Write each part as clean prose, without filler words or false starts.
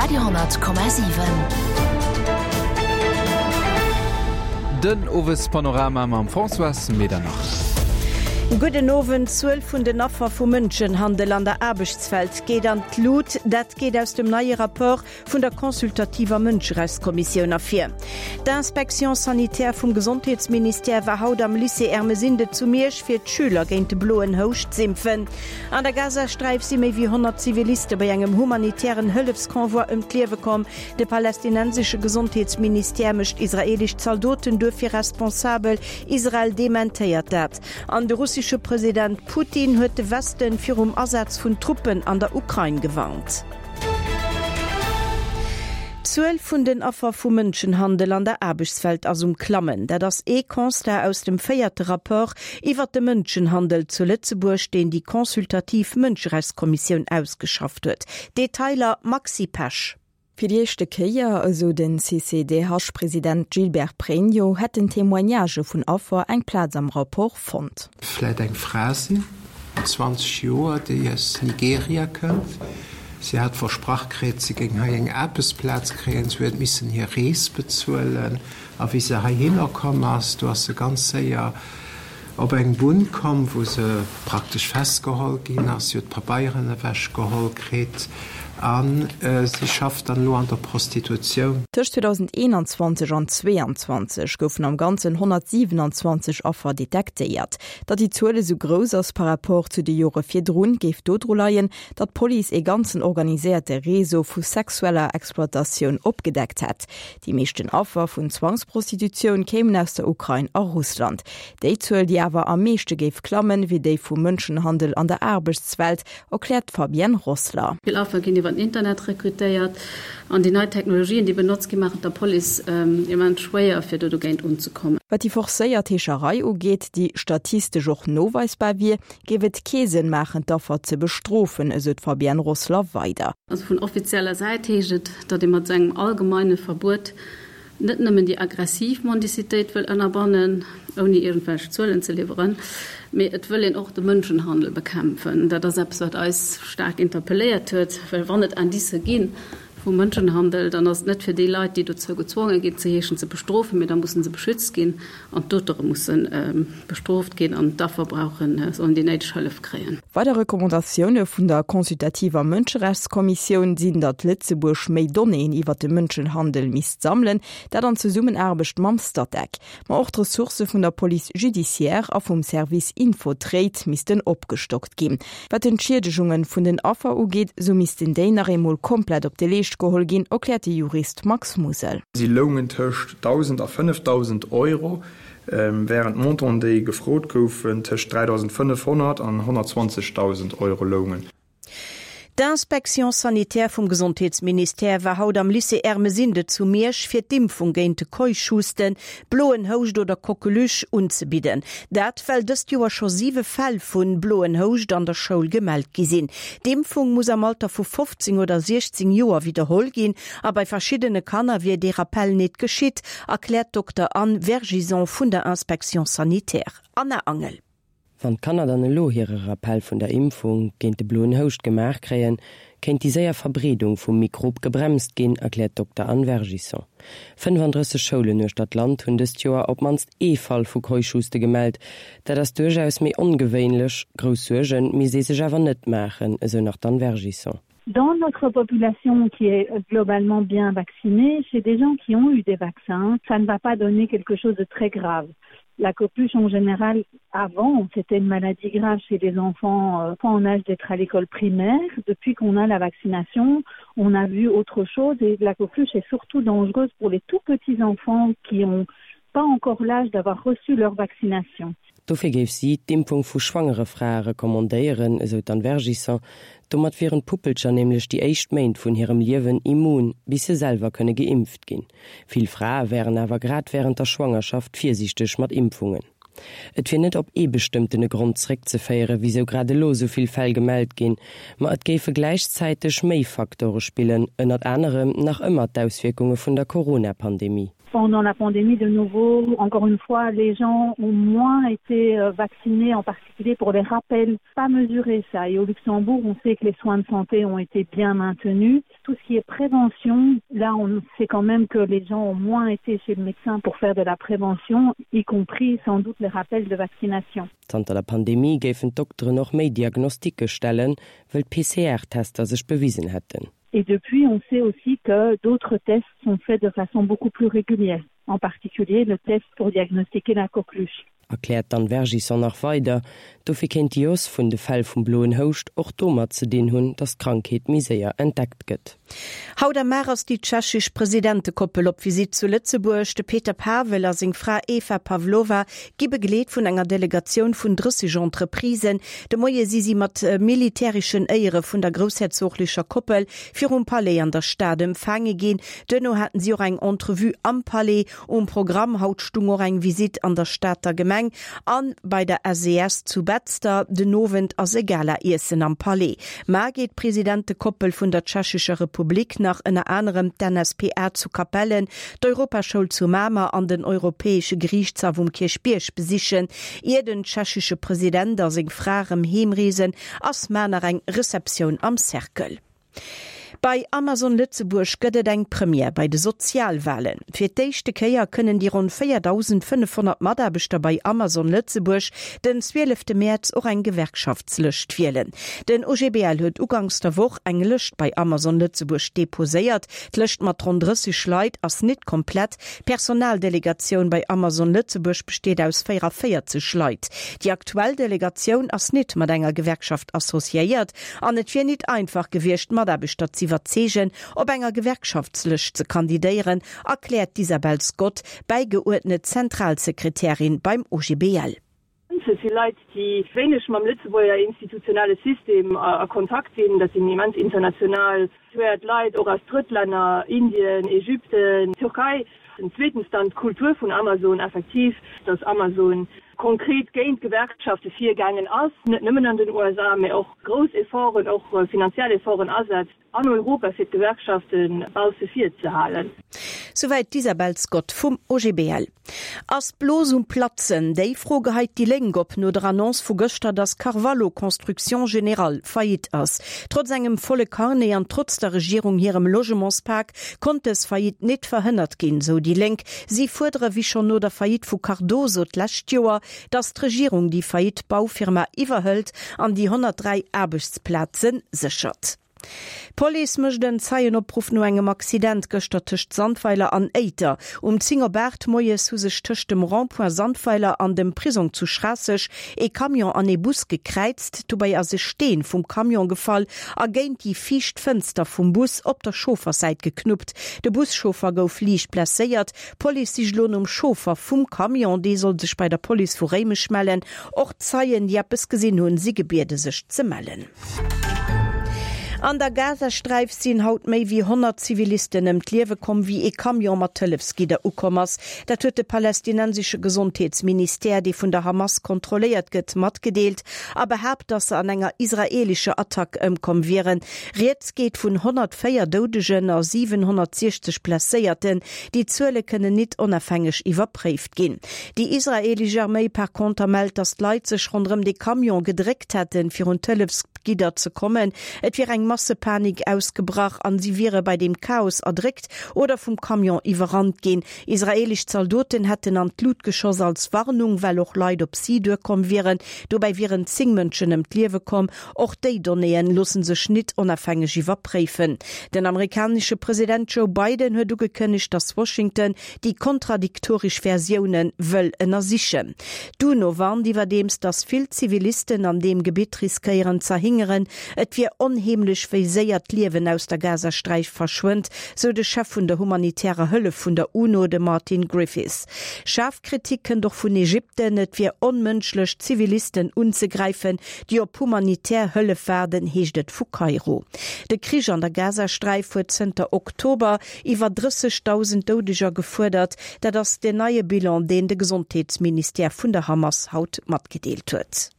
Radio 10,7. Den Owespanorama mam Françoise Medernach. Gudden Owend. D'Zuel vun den Affer vu Mënschenhandel an der Aarbechtswelt geet an d'Lut. Dat geet aus dem neie Rapport vun der consultativer Mënscherechtskommissioun ervir. D'Inspection sanitaire vum Gesondheetsministère war haut am Lycée Ermesinde zu Miersch fir d'Schüler géint de bloen Houscht z'impfen. An der Gazasträif si méi wéi 100 Ziviliste bei engem humanitären Hëllefsconvoi ëm d'Liewe komm. De palästinensesche Gesondheetsministère mécht israeelesch Zaldoten duerfir responsabel. Israel dementéiert dat. An de russesche President Putin huet de Westen virum Asaz vun Truppen an der Ukrain gewarnt. D'Zuel vun den Affer vu Mënschenhandel an der Aarbechtswelt ass um Klammen. Dat ass ee Constat aus dem véierte Rapport iwwert de Mënschenhandel zu Lëtzebuerg, deen déi consultativ Mënscherechtskommissioun ausgeschafft huet. Detailer Maxi Pesch. Fir déi éischte Kéier, esou den CCDH-President Gilbert Pregno, hätten Témoignagë vun Affer eng Plaz am Rapport fonnt. Vläit eng Fra sinn, 20 Joer, déi aus Nigeria kënnt. Si hat versprach kritt, si géing hei eng Aarbechtsplaz kréien. Si huet missen hir Rees bezuelen. A wéi se heihinner komm ass, do ass se ganz séier op eng Bunn komm, wou se praktesch festgeholl ginn ass. Si huet d'Pabeieren ewechgeholl kritt a si schafft dann elo an der Prostitutioun. Tëscht 2021 an 2022 goufen am Ganzen 127 Affer detektéiert. Datt déi Zuel esou grouss ass par rapport zu de Jore virdrun, géif dodru leien, datt d'Police ee ganzen organiséierte Réseau vu sexueller Exploitatioun opgedeckt hätt. Déi meeschten Affer vun Zwangsprostitutioun kéimen aus der Ukrain a Russland. Déi Zuel, déi awer am meeschte géif klammen, wier déi vum Mënschenhandel an der Aarbechtswelt, erkläert d'Fabienne Rossler. Vill Affer ginn iwwer den Internet rekrutéiert an déi nei Technologien, déi benotzt ginn, maachen et der Police immens schwéier, fir do dogéint unzekommen. Wat déi forcéiert Heescherei ugeet, déi statistesch och noweisbar wier, géif et kee Sënn maachen, d'Affer ze bestrofen, esou d'Fabienne Rossler weider. Also vun offizieller Säit heescht et, datt ee mat esou engem allgemeine Verbuet net nëmmen déi aggressiv Mendicitéit wëll ënnerbannen, ouni iergendwelch Zuelen ze liwweren, mee et wëll een och de Mënschenhandel bekämpfen. Dat ass eppes, wat eis staark interpelléiert huet, well wann et Indicë gi vu Mënschenhandel, dann ass et net fir déi Leit, déi dozou gezwonge ginn ze heeschen, ze bestrofen, mee da musse se beschützt ginn. An d'Auteure musse bestrooft ginn an d'Affer brauchen, sollen déi néideg Hëllef kréien. Weider Recommandatioune vun der consultativer Mënscherechtskommissioun sinn, datt Lëtzebuerg méi Donnéeën iwwer de Mënschenhandel misst sammelen, dat an Zesummenaarbecht mam Statec. Ma och d'Ressourcë vun der Police judiciaire a vum Service Infotrade missten opgestockt ginn. Wat d'Entschiedegunge vun den Affer ugeet, sou missten déi nach eemol komplett op de Leescht geholl ginn, erkläert de Jurist Max Musel. Si loungen tëscht 1.000 a 5.000 Euro, wärend d'Montanten, déi gefrot goufen, tëscht 3.500 an 120.000 Euro loungen. D'Inspection sanitaire vum Gesondheetsministère war haut am Lycée Ermesinde zu Miersch fir d'Impfung géint de Keuchhusten, bloen Houscht oder Coqueluche unzebidden. Dat well dëst Joer scho 7 Fäll vun bloen Houscht an der Schoul gemellt gi sinn. D'Impfung muss am Alter vu 15 oder 16 Joer widderholl ginn a bei verschiddene Kanner wier dee Rappell nit geschitt, erkläert d'Dokter Anne Vergison vun der Inspection sanitaire. Anna Angel. Wann d'Kanner dann elo hire Rappell vun der Impfung géint de bloen Houscht gemaach kréien, kéint déi séier Verbreedung vum Mikrob gebremst ginn, erkläert d'Dokter Anne Vergison. 35 Schoulen uechter d'Land hunn dëst Joer op d'mannst ee Fall vu Keuchhuste gemellt. Dat ass duerchaus méi ongewéinlech. Grouss Suerge misst ee sech awer net maachen, esou nach d'Anne Vergison. Dans notre population qui est globalement bien vaccinée, chez des gens qui ont eu des vaccins, ça ne va pas donner quelque chose de très grave. La copuche en général avant, c'était une maladie grave chez les enfants euh, pas en âge d'être à l'école primaire. Depuis qu'on a la vaccination, on a vu autre chose et la coqueluche est surtout dangereuse pour les tout petits enfants qui ont pas encore l'âge d'avoir reçu leur vaccination. Dofir géif si d'Impfung vu schwangere Frae recommandéieren, esou d'Anne Vergison. Domat wieren d'Puppelcher nämlech déi éischt Méint vun hirem Liewen immun, bis se selwer kënne geimpft ginn. Vill Frae wären awer grad wärend der Schwangerschaft virsiichteg mat Impfungen. Et wier net op ee bestëmmtene Grond zeréckzeféieren, wisou grad elo esou vill Fäll gemellt ginn, ma et géife gläichzäiteg méi Faktore spillen, ënnert anerem nach ëmmer d'Auswierkunge vun der Corona-Pandemie. Pendant la pandémie de nouveau, encore une fois, les gens ont moins été euh, vaccinés, en particulier pour les rappels, pas mesuré ça. Et au Luxembourg, on sait que les soins de santé ont été bien maintenus. Tout ce qui est prévention, là on sait quand même que les gens ont moins été chez le médecin pour faire de la prévention, y compris sans doute les rappels de vaccination. Zanter der Pandemie géifen d'Dokteren och méi Diagnosticke stellen, wëll d'PCR-Tester sech bewisen hätten. Et depuis, on sait aussi que d'autres tests sont faits de façon beaucoup plus régulière, en particulier le test pour diagnostiquer la coqueluche. Erkläert d'Anne Vergison nach weider. Dofir kéint déi Hausse vun de Fäll vum bloen Houscht och domat ze dinn hunn, datt d'Krankheet méi séier entdeckt gëtt. Haut am Mar ass déi tschechesch Presidentekoppel op Visitt zu Lëtzebuerg. De Peter Pavel a seng Fra Eva Pavlova gi begleet vun enger Delegatioun vun 30 Entreprisen. De Moie si si mat militäreschen Éiere vun der groussherzoglecher Koppel virum Palais an der Stad empfaange ginn. Duerno haten si och eng Entrevue am Palais. Um Programm haut stung och eng Visitt an der Stater Gemeng an bei der SES zu Betzder. Den Owend ass e Gala-Iessen am Palais. Mar geet d'Presidentekoppel vun der Tschechescher Republik nach ënner anerem d'NSPA zu Capellen, d'Europaschoul zu Mamer an den Europäesche Geriichtshaff um Kierchbierg besichen. Ier den tschechesche President a seng Fra rëm heemreesen, ass mar nach eng Receptioun am Cercle. Bei Amazon Lëtzebuerg gëtt et eng Première bei de Sozialwalen. Fir d'éischte Kéier kënnen déi ronn 4.500 Mataarbechter bei Amazon Lëtzebuerg den 12 Mäerz och eng Gewerkschaftslëscht wielen. Den OGBL huet uganks der Woch eng Lëscht bei Amazon Lëtzebuerg deposéiert. D'Lëscht mat ronn 30 Leit ass nit komplett. D'Personaldelegatioun bei Amazon Lëtzebuerg besteet aus 44 Leit. Déi aktuell Delegatioun ass nit mat enger Gewerkschaft associéiert an et wier nit einfach gewiescht, d'Mataarbechter z'iwwerzeegen, op enger Gewerkschaftslëscht ze kandidéieren, erkläert d'Isabel Scott, bäigeuerdnet Zentralsekretärin beim OGBL. Et si Leit, déi wéineg mam Lëtzebuerger institutionelle System a Kontakt sinn. Dat sinn immens international situéiert Leit, och aus Drëttlänner, Indien, Ägypten, Türkei. Zweetens dann d'Kultur vun Amazon, effektiv, datt Amazon konkret géint d'Gewerkschafte virgaangen ass, net nëmmen an den USA, mä och grouss Efforten, och finanziell Efforten asetzt an Europa, fir d'Gewerkschafte bausse vir ze halen. Souwäit d'Isabel Scott vum OGBL. Ass d'Blos um Platzen? Déi Fro geheit déi Lénk op no der Annonce vu gëschter, datt Carvalho Construction Générale faillite ass. Trotz engem volle Carnet an trotz der Regierung hirem Logementspak konnt dës Faillite nit verhënnert ginn, sou déi Lénk. Si fuerdere wéi schonn no der Faillite vu Cardoso d'lescht Joer, datt d'Regierung déi faillite Baufirma iwwerhëlt an déi 103 Aarbechtsplaze séchert. D'Police mécht en Zeienopruff no engem Accident gëschter tëscht Sandweiler an Éiter. Um 10 op 8 moies hu sech tëscht dem Rond-point Sandweiler an dem Prisong zu Schraasseg ee Camion an ee Bus gekräizt. Dobäi ass e Steen vum Camion gefall a géint déi viischt Fënster vum Bus op der Chaufferssäit geknuppt. De Buschauffer gouf liicht blesséiert. D'Police sicht elo nom Chauffer vum Camion. Dee soll sech bei der Police vu Réimech mellen. Och Zeien, déi eppes gesinn hunn, si gebiede sech ze mellen. An der Gazasträif sinn haut méi wéi 100 Zivilisten ëm d'Liewe komm, wéi ee Camion mat Hëllefsgidder ukomm ass. Dat huet de palästinensesche Gesondheetsministère, dee vun der Hamas kontrolléiert gëtt, matgedeelt a behaapt, datt se an enger israeelescher Attack ëmkomm wieren. Rieds geet vun 104 Doudegen a 760 Blesséierten. Déi Zuele kënnen nit onafhängeg iwwerpréift ginn. Déi israeelesch Arméi par conter mellt, datt d'Leit sech ronderëm de Camion gedréckt hätten, fir un d'Hëllefsgidder ze kommen. Et wier eng Massepanik ausgebrach an si wiere bei deem Chaos erdréckt oder vum Camion iwwerrannt ginn. Israeelesch Zaldoten hätten an d'Lut geschoss als Warnung, well och Leit op si duerkomm wieren. Dobäi wieren 10 Mënschen ëm d'Liewe komm. Och déi Donnéeën loosse sech nit onafhängeg iwwerpréifen. Den amerikanesche President Joe Biden huet ugekënnegt, datt Washington déi kontradiktoresch Versioune wëll ënnersichen. D'UNO warnt iwwerdeems, datt vill Zivilisten an deem Gebitt riskéieren z'erhingeren. Et wier onheemlech, wéi séier d'Liewen aus der Gazasträif verschwënnt, sou de Chef vun der humanitärer Hëllef vun der UNO, de Martin Griffiths. Schaarf Kritik kënnt och vun Ägypten. Et wier onmënschlech, Zivilisten unzegräifen, déi op humanitär Hëllef waarden, heescht et vu Kairo. De Krich an der Gazasträif huet zënter Oktober Iwwer 30.000 Doudeger gefuerdert. Dat ass den neie Bilan, deen de Gesondheetsministère vun der Hamas haut matgedeelt huet.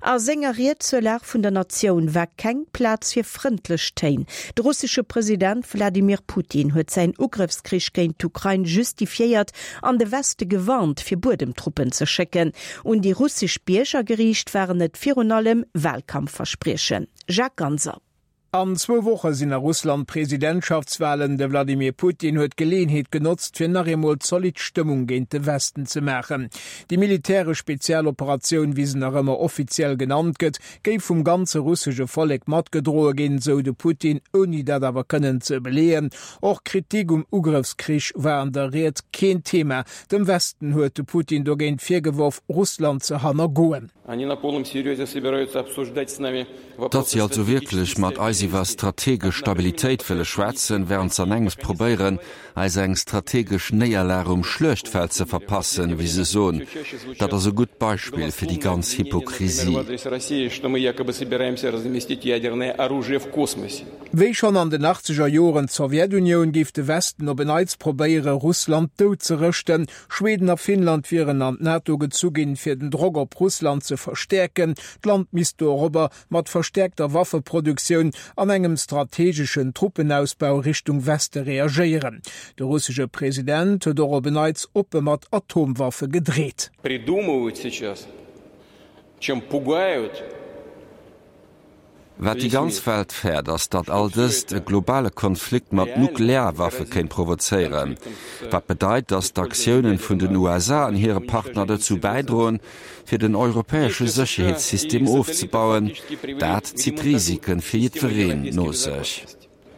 A senger Ried zur Lag vun der Natioun war keng Plaz fir frëndlech Téin. De russesche President Wladimir Putin huet säin Ugrëffskrich géint d'Ukrain justifiéiert an de Weste gewarnt, fir Buedemtruppen ze schécken. Un déi russesch Bierger geriicht waren et virun allem Walkampfverspriechen. Jacques Ganser. An zwou Woche sinn a Russland Presidentschaftswalen. De Wladimir Putin huet d'Geleeënheet genotzt, fir nach eemol zolidd Stëmmung géint de Westen ze maachen. Déi militäresch Spezialoperatioun, wéi se nach ëmmer offiziell genannt gëtt, géif vum ganze russesche Vollek matgedroe ginn, sou de Putin, ouni dat awer kënnen ze beleeën. Och Kritik um Ugrëffskrich war an der Ried keen Thema. Dem Westen huet de Putin dogéint virgeworf, Russland ze hannergoen. Datt si also wierklech mat eis iwwer strategesch Stabilitéit wëlle schwätzen, während se an engems probéieren, eis eng strategesch Néierlag um Schluechtfeld ze verpassen, wéi se soen, dat ass e gutt Beispill fir déi ganz Hypokrisie. Wéi schonn an den achtzeger Joren d'Sowjetunioun, géif de Westen op en Neits probéiere Russland dout ze rëschten. Schweden a Finnland wieren an d'NATO gezu ginn, fir den Drock op Russland ze verstäerken. D'Land misst dorobber mat verstäerkter Waffeproduktioun an engem strategeschen Truppenausbau Richtung Weste reagéieren. De russesche President huet och op en Neits oppe mat Atomwaffe gedreet. Wat déi ganz Welt fäert, ass, datt all dëst e globale Konflikt mat Nuklearwaffe kéint provozéieren. Wat bedeit, datt d'Aktiounen vun den USA an hire Partner dozou bäidroen, fir den europäesche Sécherheetssystem ofzebauen. Dat zitt Risike fir jiddwereen no sech.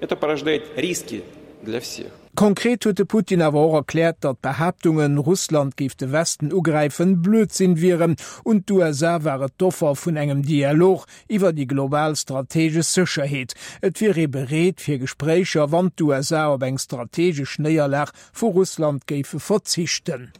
Это порождает риски для всех. Konkret huet de Putin awer och erkläert, datt d'Behaaptungen, Russland géif de Westen ugräifen, Blödsinn wieren. Un d'USA war et d'Offer vun engem Dialog iwwer déi global strategesch Sécherheet. Et wier ee bereet fir Gespréicher, wann d'USA op eng strategesch Néierlag vu Russland géife verzichten.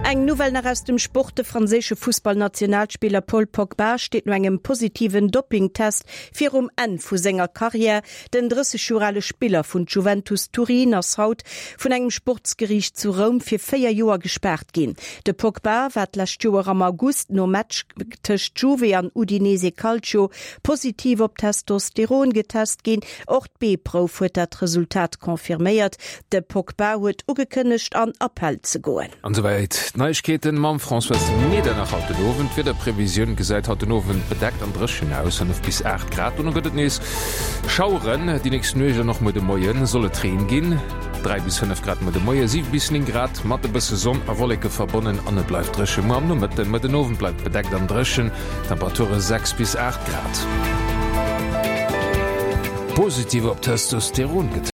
Eng Nouvelle nach aus dem Sport, De franséische Fussballnationalspiller Paul Pogba steet no engem positiven Doppingtest virum Enn vu senger Karriär. Den 30 Joer ale Spiller vun Juventus Turin ass haut vun engem Sportsgeriicht zu Roum fir 4 Joer gespaart ginn. De Pogba war d'lescht Joer am August nom Match tëscht Juve an Udinese Calcio positiv op Testosteron getest ginn. Och d'B-Prouf huet dat Resultat confirméiert. De Pogba huet ugekënnegt an Appell ze goen. An esouwäit d'Neiegkeeten mam Françoise Medernach haut den Owend. D'Wiederprevisioun gesäit haut den Owend bedeckt an dréchen aus, 5 bis 8 Grad. Dono gëtt et nees Schaueren. Déi nächst Nuecht an och muer de Moie soll et Reen ginn, 3 bis 5 Grad muer de Moie, 7 bis 9 Grad mat e bësse Sonn a Wolleke verbonnen an et bleift dréche muer am Nomëtten. Muer den Owend bleift bedeckt an dréchen, Temperature 6 bis 8 Grad. Positiv op Testosteron getest.